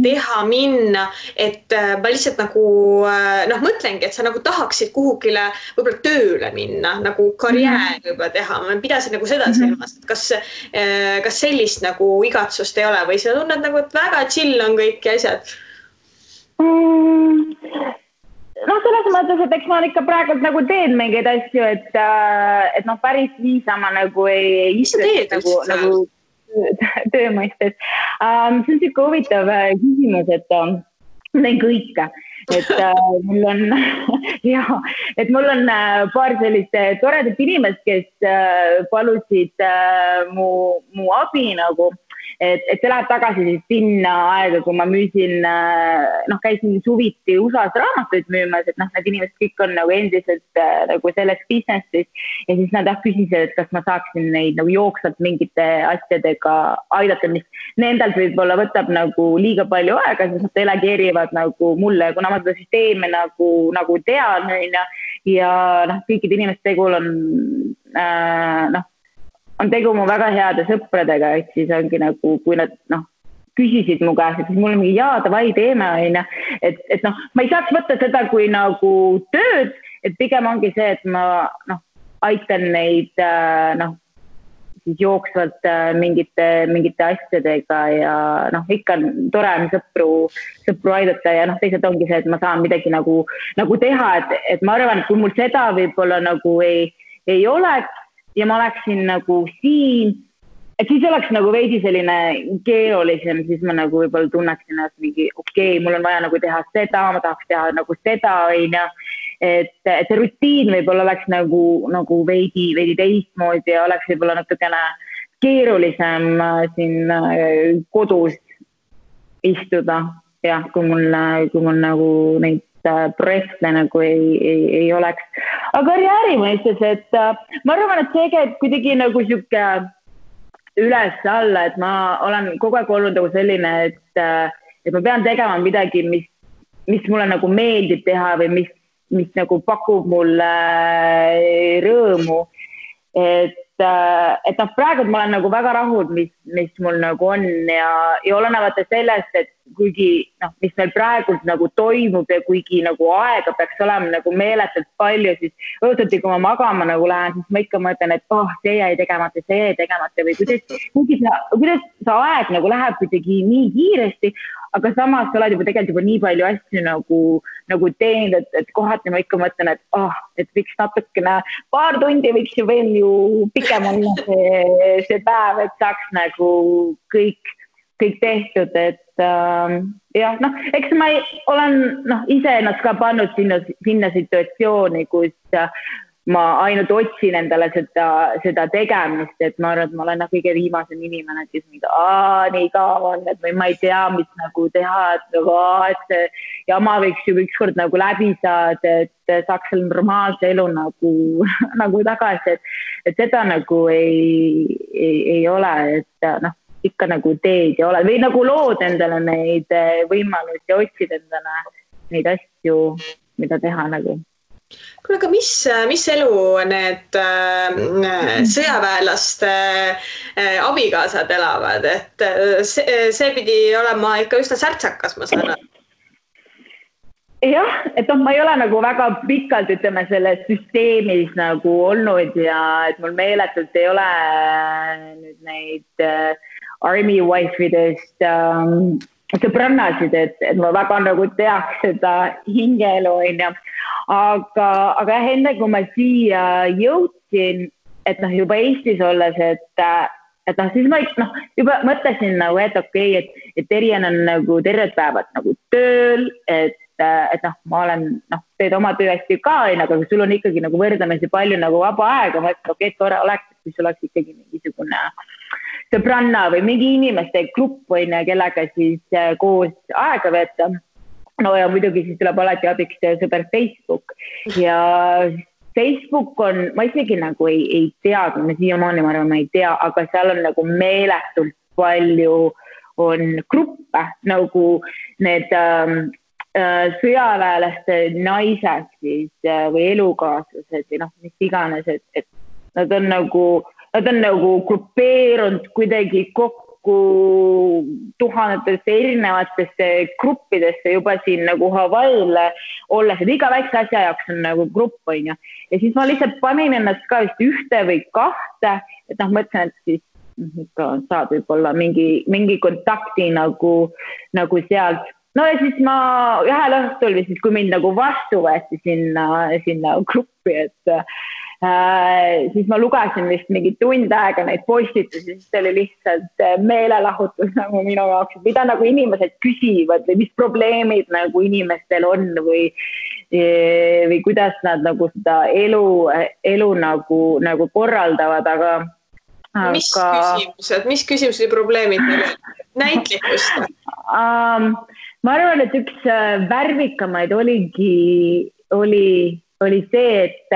teha, minna, et ma lihtsalt nagu mõtlengi, et sa nagu tahaksid kuhugile võib-olla tööle minna, nagu karjäär juba teha. Ma pidasin nagu seda silmas, et kas sellist nagu igatsust ei ole või sa tunned nagu, et väga chill on kõik asjad? Selles mõttes, et eks ma ikka praegult nagu teen mingeid asju, et päris niisama nagu ei istu nagu töö mõistes. See on siuke huvitav küsimus, et ma teen kõike, et mul on paar sellist toredat inimest, kes palusid mu abi nagu. Et see läheb tagasi siis sinna aega, kui ma müüsin, käisin suviti USA-s raamatuid müümas, et need inimesed kõik on nagu endiselt nagu selles businessis ja siis nad küsisid, et kas ma saaksin neid nagu jooksvalt mingite asjadega aidata, mis nendelt võib-olla võtab nagu liiga palju aega, siis nad delegeerivad nagu mulle, kuna ma seda süsteemi nagu tean ja kõikide inimeste tegul on tegu mu väga heade sõpradega, et siis ongi nagu, kui nad küsisid mu käest, et siis mul on mingi davai teeme, et ma ei saaks võtta seda kui nagu tööd, et pigem ongi see, et ma aitan neid siis jooksvalt mingite asjadega ja ikka on tore on sõpru aidata ja teised ongi see, et ma saan midagi nagu teha, et ma arvan, et kui mul seda võib-olla nagu ei oleks, ja ma oleksin nagu siin, et siis oleks nagu veidi selline keerulisem, siis ma nagu võib-olla tunneksin, et mingi mul on vaja nagu teha seda, ma tahaks teha nagu seda, et see rutiin võib-olla oleks nagu veidi teistmoodi ja oleks võib-olla natukene keerulisem siin kodus istuda, jah, kui mul nagu neid projekte nagu ei oleks. Aga karjääri mõistes, et ma arvan, et see käib kuidagi nagu siuke üles alla, et ma olen kogu aeg olnud nagu selline, et ma pean tegema midagi, mis mulle nagu meeldib teha või mis nagu pakub mulle rõõmu. Et praegu ma olen nagu väga rahul, mis mul nagu on ja olenevalt sellest, et kuigi mis meil praegult nagu toimub ja kuigi nagu aega peaks olema nagu meeletult palju, siis õhtuti, kui ma magama nagu lähen, siis ma ikka mõtlen, et see jäi tegemata või kuidas see aeg nagu läheb kuidagi nii kiiresti, aga samas sa oled juba nii palju asju nagu teinud, et kohati ma ikka mõtlen, et võiks natukene paar tundi võiks ju veel ju pikem olla see päev, et saaks nagu kõik tehtud, et eks ma olen ise ennast ka pannud sinna situatsiooni, kus ma ainult otsin endale seda tegemist, et ma arvan, et ma olen kõige viimasem inimene, kes nii kaua on, et ma ei tea, mis nagu teha, et see jama võiks ju ükskord nagu läbi saada, et saaks selle normaalse elu nagu tagasi, et seda nagu ei ole, et ikka nagu teed ja oled või nagu lood endale neid võimalusi ja otsid endale neid asju, mida teha nagu. Kuule, aga mis elu need sõjaväelaste abikaasad elavad, et see pidi olema ikka üsna särtsakas, ma saan aru. Jah, et ma ei ole nagu väga pikalt, ütleme, selles süsteemis nagu olnud ja et mul meeletult ei ole nüüd neid army wife'idest sõbrannasid, et ma väga nagu teaks seda hingeelu, aga enne kui ma siia jõudsin, et juba Eestis olles, siis ma juba mõtlesin nagu, et okei, et Terjen on nagu terved päevad nagu tööl, et ma olen, teed oma töö hästi ka, aga sul on ikkagi nagu võrdlemisi palju nagu vaba aega, ma ütlen, okei, tore oleks, kui sul oleks ikkagi mingisugune sõbranna või mingi inimeste grupp või kellega siis koos aega veeta. No ja muidugi siis tuleb alati abiks sõber Facebook ja Facebook on, ma isegi nagu ei tea, ma siiamaani ma arvan, ma ei tea, aga seal on nagu meeletult palju on gruppe nagu need sõjaväelaste naised siis või elukaaslased või mis iganes, et nad on nagu grupeerunud kuidagi kokku tuhandetesse erinevatesse gruppidesse juba siin nagu Hawaii'le olles, et iga väikse asja jaoks on nagu grupp, on ju. Ja siis ma lihtsalt panin ennast ka vist ühte või kahte, et mõtlesin, et siis saad võib-olla mingi kontakti nagu sealt. No ja siis ma ühel õhtul või siis, kui mind nagu vastu võeti sinna gruppi, et siis ma lugesin vist mingi tund aega neid postitusi, siis see oli lihtsalt meelelahutus nagu minu jaoks, mida nagu inimesed küsivad või mis probleemid nagu inimestel on või kuidas nad nagu seda elu nagu korraldavad, aga Mis küsimused ja probleemid meil on? Näitlikust? Ma arvan, et üks värvikamaid oli see, et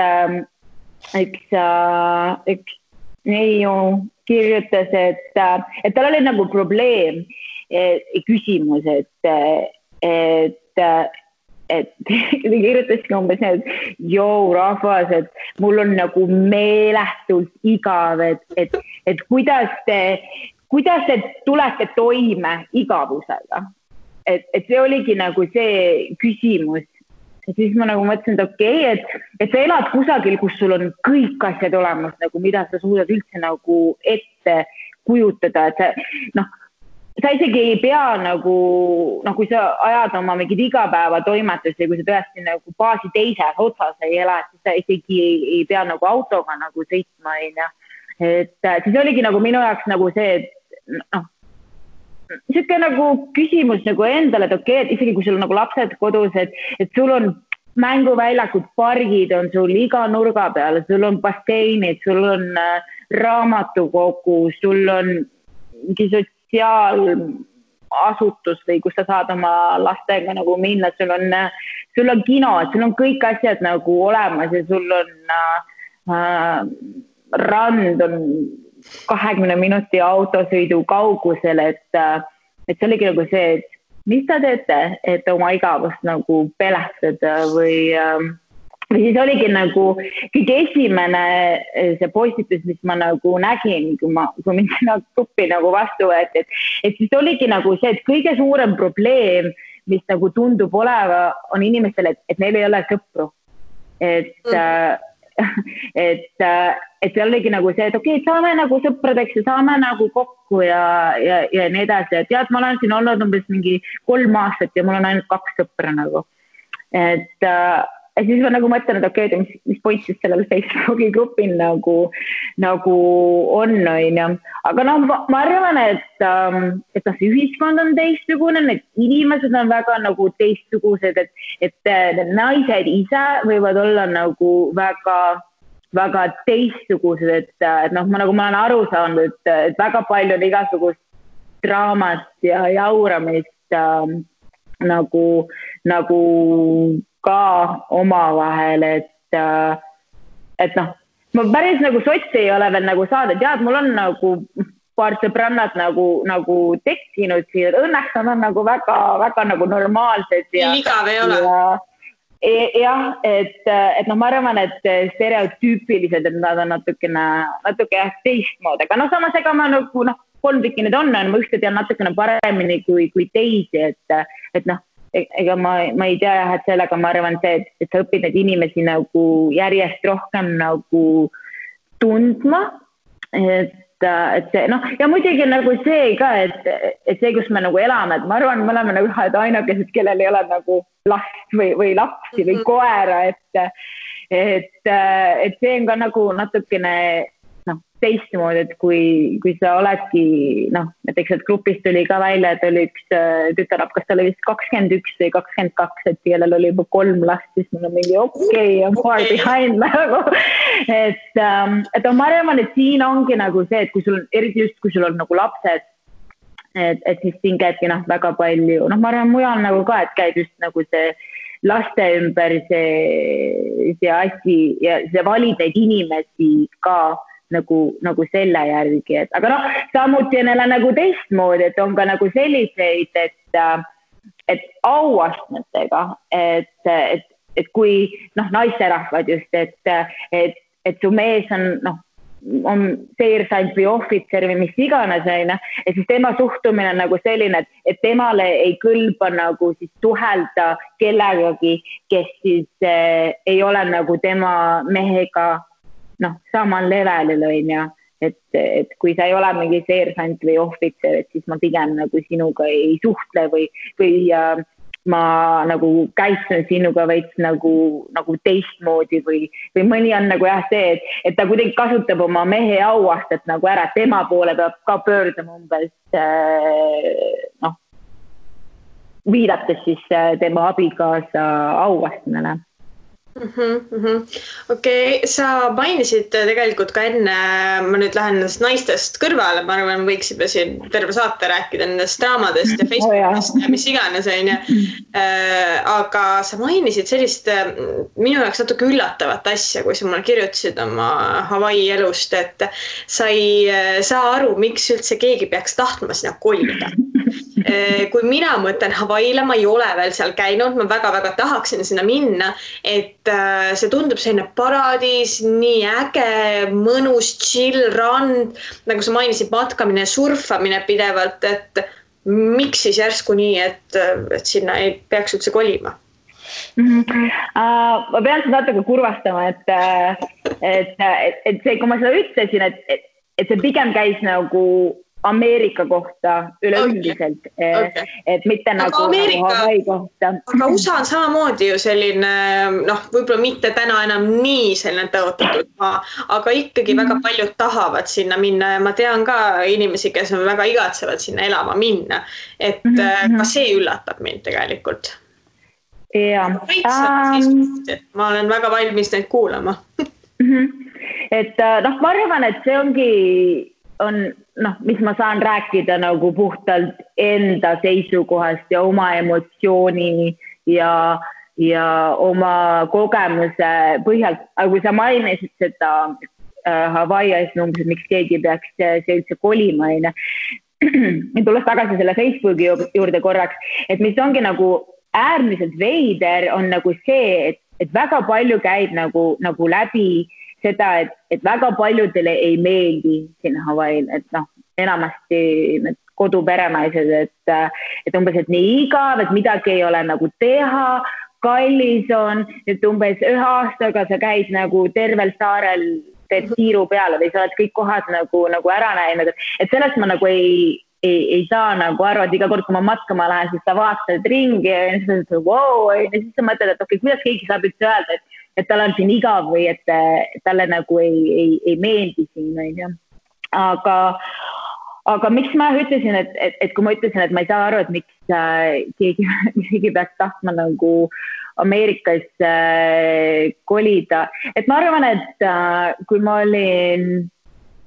üks neiu kirjutas, et tal oli nagu probleem, küsimus, et kirjutaski umbes need, rahvas, et mul on nagu meeletult igav, et kuidas te tulete toime igavusega. Et see oligi nagu see küsimus. Ja siis ma nagu mõtlesin, et okei, et sa elad kusagil, kus sul on kõik asjad olemas, nagu mida sa suudad üldse nagu ette kujutada, et sa isegi ei pea nagu, kui sa ajad oma mingid igapäevatoimetusi, kui sa tõesti nagu baasi teises otsas ei ela, siis sa isegi ei pea nagu autoga nagu sõitma, et siis oligi nagu minu jaoks nagu see, et siuke nagu küsimus nagu endale, et okei, et isegi kui sul on nagu lapsed kodus, et sul on mänguväljakud, pargid on sul iga nurga peal, sul on basseinid, sul on raamatukogu, sul on mingi sotsiaalasutus või kus sa saad oma lastega nagu minna, sul on kino, sul on kõik asjad nagu olemas ja sul on rand on 20 minuti autosõidu kaugusel, et see oligi nagu see, et mis ta teete, et oma igavust nagu pelastada või siis oligi nagu kõige esimene see postitus, mis ma nagu nägin, kui mind sinna gruppi nagu vastu võeti, et siis oligi nagu see, et kõige suurem probleem, mis nagu tundub oleva, on inimestele, et neil ei ole sõpru. Et see oligi nagu see, et okei, saame nagu sõpradeks ja saame nagu kokku ja nii edasi. Et tead, ma olen siin olnud umbes mingi 3 aastat ja mul on ainult 2 sõpra nagu. Et siis ma nagu mõtlen, et okei, mis point siis sellel Facebooki grupil nagu on. Aga ma arvan, et see ühiskond on teistsugune, need inimesed on väga nagu teistsugused, et naised ise võivad olla nagu väga teistsugused, et ma olen aru saanud, et väga palju on igasugust draamat ja jauramist nagu ka omavahel, et ma päris nagu sotsi ei ole veel nagu saada, tead, mul on nagu paar sõbrannat nagu tekkinud siin, et õnneks on nagu väga nagu normaalsed ja igav ei ole. Jah, et ma arvan, et stereotüüpilised, et nad on natuke teistmood, aga samas ega ma nagu 3 tükki need on, ma ühte tean natukene paremini kui teisi, et ega ma ei tea, et sellega ma arvan see, et sa õpid neid inimesi nagu järjest rohkem nagu tundma, et see, ja muidugi nagu see ka, et see, kus me nagu elame, et ma arvan, me oleme nagu ühed ainukesed, kellel ei ole nagu last või lapsi või koera, et see on ka nagu natukene teistmoodi, et kui sa oledki, näiteks et grupist tuli ka välja, et oli üks tütarlap, kas ta oli vist 21 või 22, et kellel oli juba 3 last, siis mul on mingi I'm far behind nagu. Et ma arvan, et siin ongi nagu see, et kui sul on, eriti just kui sul on nagu lapsed, et siis siin käibki väga palju, ma arvan mujal nagu ka, et käib just nagu see laste ümber see asi ja see valid neid inimesi ka nagu selle järgi, et aga samuti on jälle nagu teistmoodi, et on ka nagu selliseid, et auastmetega, et kui naisterahvad just, et su mees on seersant või ohvitser või mis iganes, ja siis tema suhtumine on nagu selline, et temale ei kõlba nagu siis suhelda kellegagi, kes siis ei ole nagu tema mehega samal levelil, et kui sa ei ole mingi seersant või ohvitser, et siis ma pigem nagu sinuga ei suhtle või ma nagu käitun sinuga veits nagu teistmoodi või mõni on nagu see, et ta kuidagi kasutab oma mehe auastet nagu ära, tema poole peab ka pöörduma umbes viidates siis tema abikaasa auastmele. Okei, sa mainisid tegelikult ka enne, ma nüüd lähen nendest naistest kõrvale, ma arvan, võiksime siin terve saate rääkida nendest draamadest ja Facebookist ja mis iganes, aga sa mainisid sellist minu jaoks natuke üllatavat asja, kui sa mulle kirjutasid oma Hawaii elust, et sa ei saa aru, miks üldse keegi peaks tahtma sinna kolida. Kui mina mõtlen Hawaiile, ma ei ole veel seal käinud, ma väga-väga tahaksin sinna minna, et see tundub selline paradiis, nii äge, mõnus, chill, rand, nagu sa mainisid, matkamine, surfamine pidevalt, et miks siis järsku nii, et sinna ei peaks üldse kolima? Ma pean seda natuke kurvastama, et see, kui ma seda ütlesin, et see pigem käis nagu Ameerika kohta üleüldiselt, et mitte nagu Hawaii kohta. Aga USA on samamoodi ju selline, võib-olla mitte täna enam nii selline tõotatud maa, aga ikkagi väga paljud tahavad sinna minna ja ma tean ka inimesi, kes on väga igatsevad sinna elama minna, et ka see üllatab mind tegelikult. Ja. Ma olen väga valmis neid kuulama. Et ma arvan, et see ongi mis ma saan rääkida nagu puhtalt enda seisukohast ja oma emotsiooni ja oma kogemuse põhjalt. Aga kui sa mainisid seda Hawaii asja, miks keegi peaks see üldse kolima, tulles tagasi selle Facebooki juurde korraks, et mis ongi nagu äärmiselt veider on nagu see, et väga palju käib nagu läbi seda, et väga paljudele ei meeldi siin Hawaii'l, et enamasti need koduperenaised, et umbes, et nii igav, et midagi ei ole nagu teha, kallis on, et umbes 1 aastaga sa käid nagu tervel saarel teed siiru peale või sa oled kõik kohad nagu ära näinud, et sellest ma nagu ei saa nagu aru, et iga kord, kui ma matkama lähen, siis sa vaatad ringi ja siis sa mõtled, et okei, kuidas keegi saab üldse öelda, et tal on siin igav või et talle nagu ei meeldi siin. Aga miks ma ütlesin, et kui ma ütlesin, et ma ei saa aru, et miks keegi peaks tahtma nagu Ameerikas kolida. Et ma arvan, et kui ma olin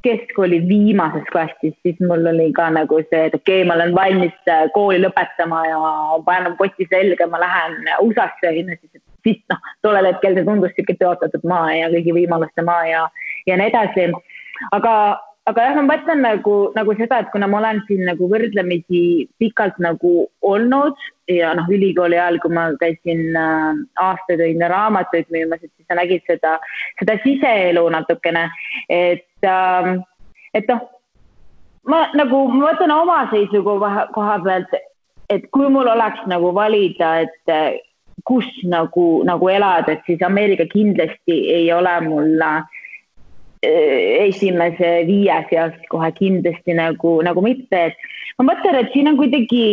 keskkooli viimases klassis, siis mul oli ka nagu see, et okei, ma olen valmis kooli lõpetama ja panen poti selga, ma lähen USA-sse, siis tollel hetkel see tundus siuke tõotatud maa ja kõigi võimaluste maa ja nii edasi. Aga jah, ma mõtlen nagu seda, et kuna ma olen siin nagu võrdlemisi pikalt nagu olnud ja ülikooli ajal, kui ma käisin aastaid raamatuid müümas, et siis sa nägid seda siseelu natukene, et ma mõtlen oma seisukoha pealt, et kui mul oleks nagu valida, et kus nagu elada, et siis Ameerika kindlasti ei ole mul esimese 5 seas kohe kindlasti nagu mitte, et ma mõtlen, et siin on kuidagi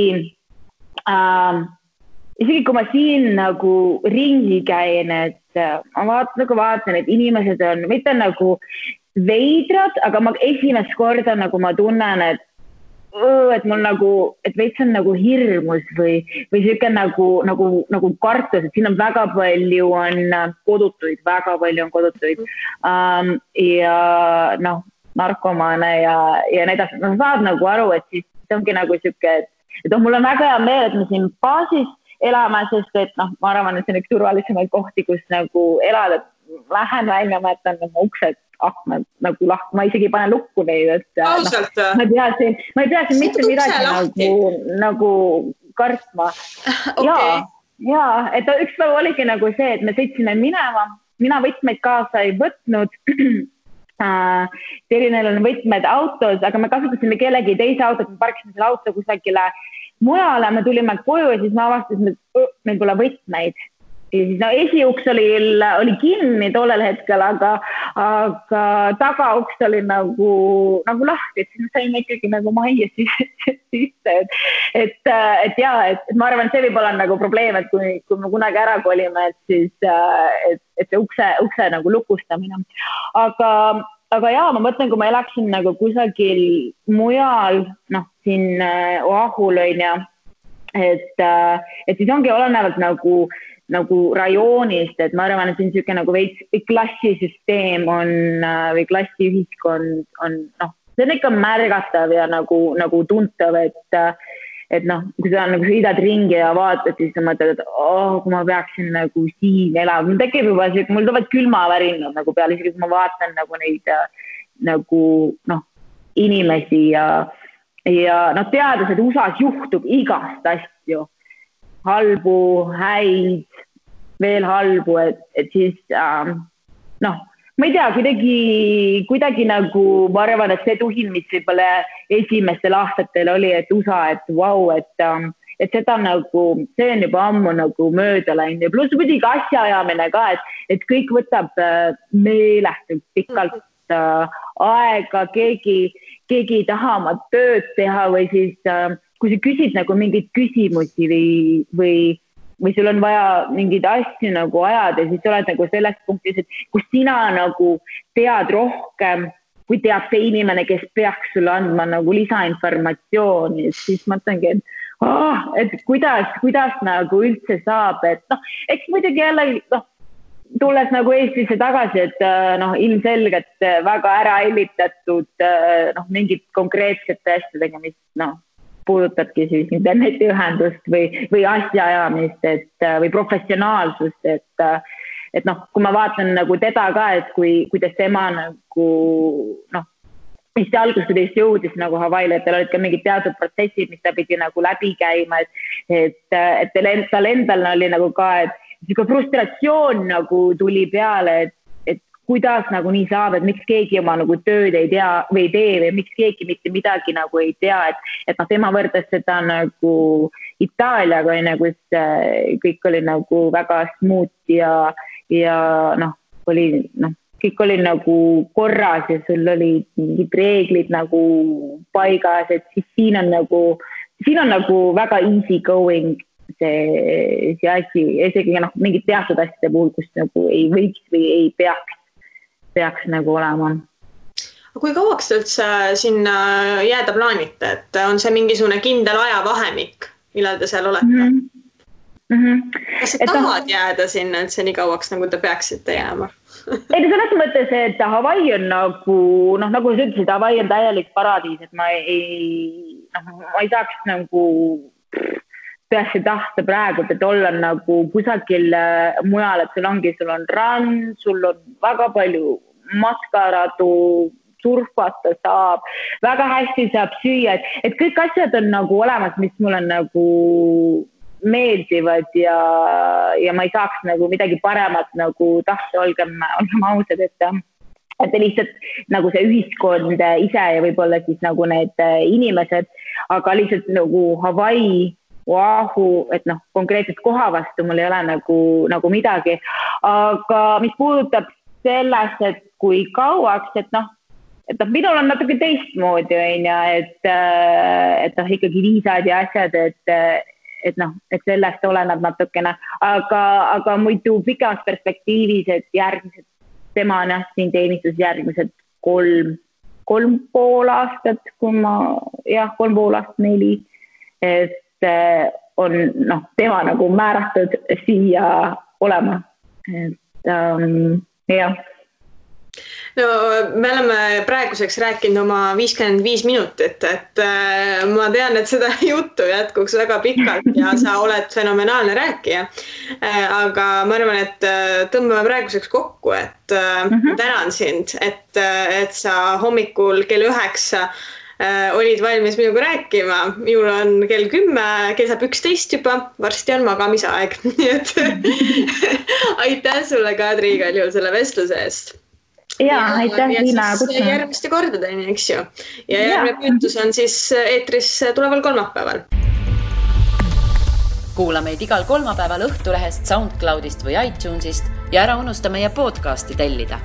isegi kui ma siin nagu ringi käin, et ma vaatan, et inimesed on mitte nagu veidrad, aga ma esimest korda nagu ma tunnen, et mul nagu, et veits on nagu hirmus või siuke nagu kartus, et siin on väga palju kodutuid ja noh, narkomaane ja nii edasi. No saad nagu aru, et siis ongi nagu siuke, et mul on väga hea meel, et me siin baasis elame, sest et noh, ma arvan, et see on üks turvalisemaid kohti, kus nagu elada. Lähen välja, ma jätan oma uksed akmed nagu lahku, ma isegi panen lukku neid, et ma ei pea siin mitte midagi nagu kartma. Okay. Ja, et üks päev oligi nagu see, et me sõitsime minema, mina võtmeid kaasa ei võtnud. Telinel on võtmed autos, aga me kasutasime kellegi teise autot, me parkisime selle auto kusagile mujale, me tulime koju ja siis ma avastasin, et meil pole võtmeid. Ja siis esiuks oli kinni tollel hetkel, aga tagauks oli nagu lahti, et siis me saime ikkagi nagu majja sisse. Et ma arvan, see võib olla nagu probleem, et kui me kunagi ära kolime, et siis et see ukse nagu lukustamine. Aga jaa, ma mõtlen, kui ma elaksin nagu kusagil mujal, noh, siin Oahul on ja, et siis ongi olenevalt nagu rajoonist, et ma arvan, et siin siuke nagu veits klassisüsteem on või klassiühiskond on, noh, see on ikka märgatav ja nagu tuntav, et noh, kui sa sõidad ringi ja vaatad, siis sa mõtled, et kui ma peaksin nagu siin elama, mul tekib juba siuke, mul tulevad külmavärinad nagu peale, isegi kui ma vaatan nagu neid nagu noh, inimesi ja noh, teades, et USA-s juhtub igast asju, halbu, häid, veel halbu, et siis noh, ma ei tea, kuidagi nagu ma arvan, et see tuhin, mis võib-olla esimestel aastatel oli, et USA, et vau, et seda nagu, see on juba ammu nagu mööda läinud ja pluss muidugi asjaajamine ka, et kõik võtab meeletult pikalt aega, keegi ei taha oma tööd teha või siis kui sa küsid nagu mingeid küsimusi või sul on vaja mingeid asju nagu ajada, siis sa oled nagu selles punktis, et kus sina nagu tead rohkem, kui teab see inimene, kes peaks sulle andma nagu lisainformatsiooni, siis mõtlengi, et kuidas nagu üldse saab, et noh, eks muidugi jälle, noh, tulles nagu Eestisse tagasi, et noh, ilmselgelt väga ära hellitatud noh, mingid konkreetsete asjadega, mis noh, puudutabki siis internetiühendust või asjaajamist, või professionaalsust, et noh, kui ma vaatan nagu teda ka, et kuidas tema nagu noh, mis see algusest jõudis nagu Hawaii'le, et tal olid ka mingid teatud protsessid, mis ta pidi nagu läbi käima, et tal endal oli nagu ka, et siuke frustratsioon nagu tuli peale, et kuidas nagu nii saab, et miks keegi oma nagu tööd ei tea või ei tee või miks keegi mitte midagi nagu ei tea, et noh, tema võrdes seda nagu Itaaliaga, kus kõik oli nagu väga smooth ja noh, kõik oli nagu korras ja sul olid mingid reeglid nagu paigas, et siis siin on nagu väga easy going see asi, isegi noh, mingid teatud asjade puhul, kus nagu ei võiks või ei peaks nagu olema. Kui kauaks te üldse sinna jääda plaanite, et on see mingisugune kindel ajavahemik, millal te seal olete? Kas te tahad jääda sinna üldse nii kauaks, nagu te peaksite jääma? Ei, selles mõttes, et Hawaii on nagu sa ütlesid, Hawaii on täielik paradiis, et ma ei saaks nagu tõesti tahta praegu, et olla nagu kusagil mujal, et sul on rand, sul on väga palju matkaradu, surfata saab, väga hästi saab süüa, et kõik asjad on nagu olemas, mis mulle nagu meeldivad ja ma ei saaks nagu midagi paremat nagu tahta, olgem ausad, et lihtsalt nagu see ühiskond ise ja võib-olla siis nagu need inimesed, aga lihtsalt nagu Hawaii, Oahu, et noh, konkreetselt koha vastu mul ei ole nagu midagi, aga mis puudutab sellest, et kui kauaks, et minul on natuke teistmoodi, et ikkagi viisad ja asjad, et sellest oleneb natukene, aga muidu pikemas perspektiivis, et järgmised, tema on siin teenistus järgmised 3,5 aastat, kui ma, 3,5 aastat, 4, et on tema nagu määratud siia olema, et jah. No me oleme praeguseks rääkinud oma 55 minutit, et ma tean, et seda juttu jätkuks väga pikalt ja sa oled fenomenaalne rääkija. Aga ma arvan, et tõmbame praeguseks kokku, et tänan sind, et sa hommikul kell 9 olid valmis minuga rääkima. Minul on kell 10, kell saab 11 juba, varsti on magamisaeg. Nii et aitäh sulle, Kadri, igal juhul selle vestluse eest. Ja, aitäh Liina kutsuma. Järgmiste kordadeni, eks ju. Ja järgmine püütus on siis eetris tuleval kolmapäeval. Kuula meid igal kolmapäeval Õhtulehest, SoundCloudist või iTunesist ja ära unusta meie podcasti tellida.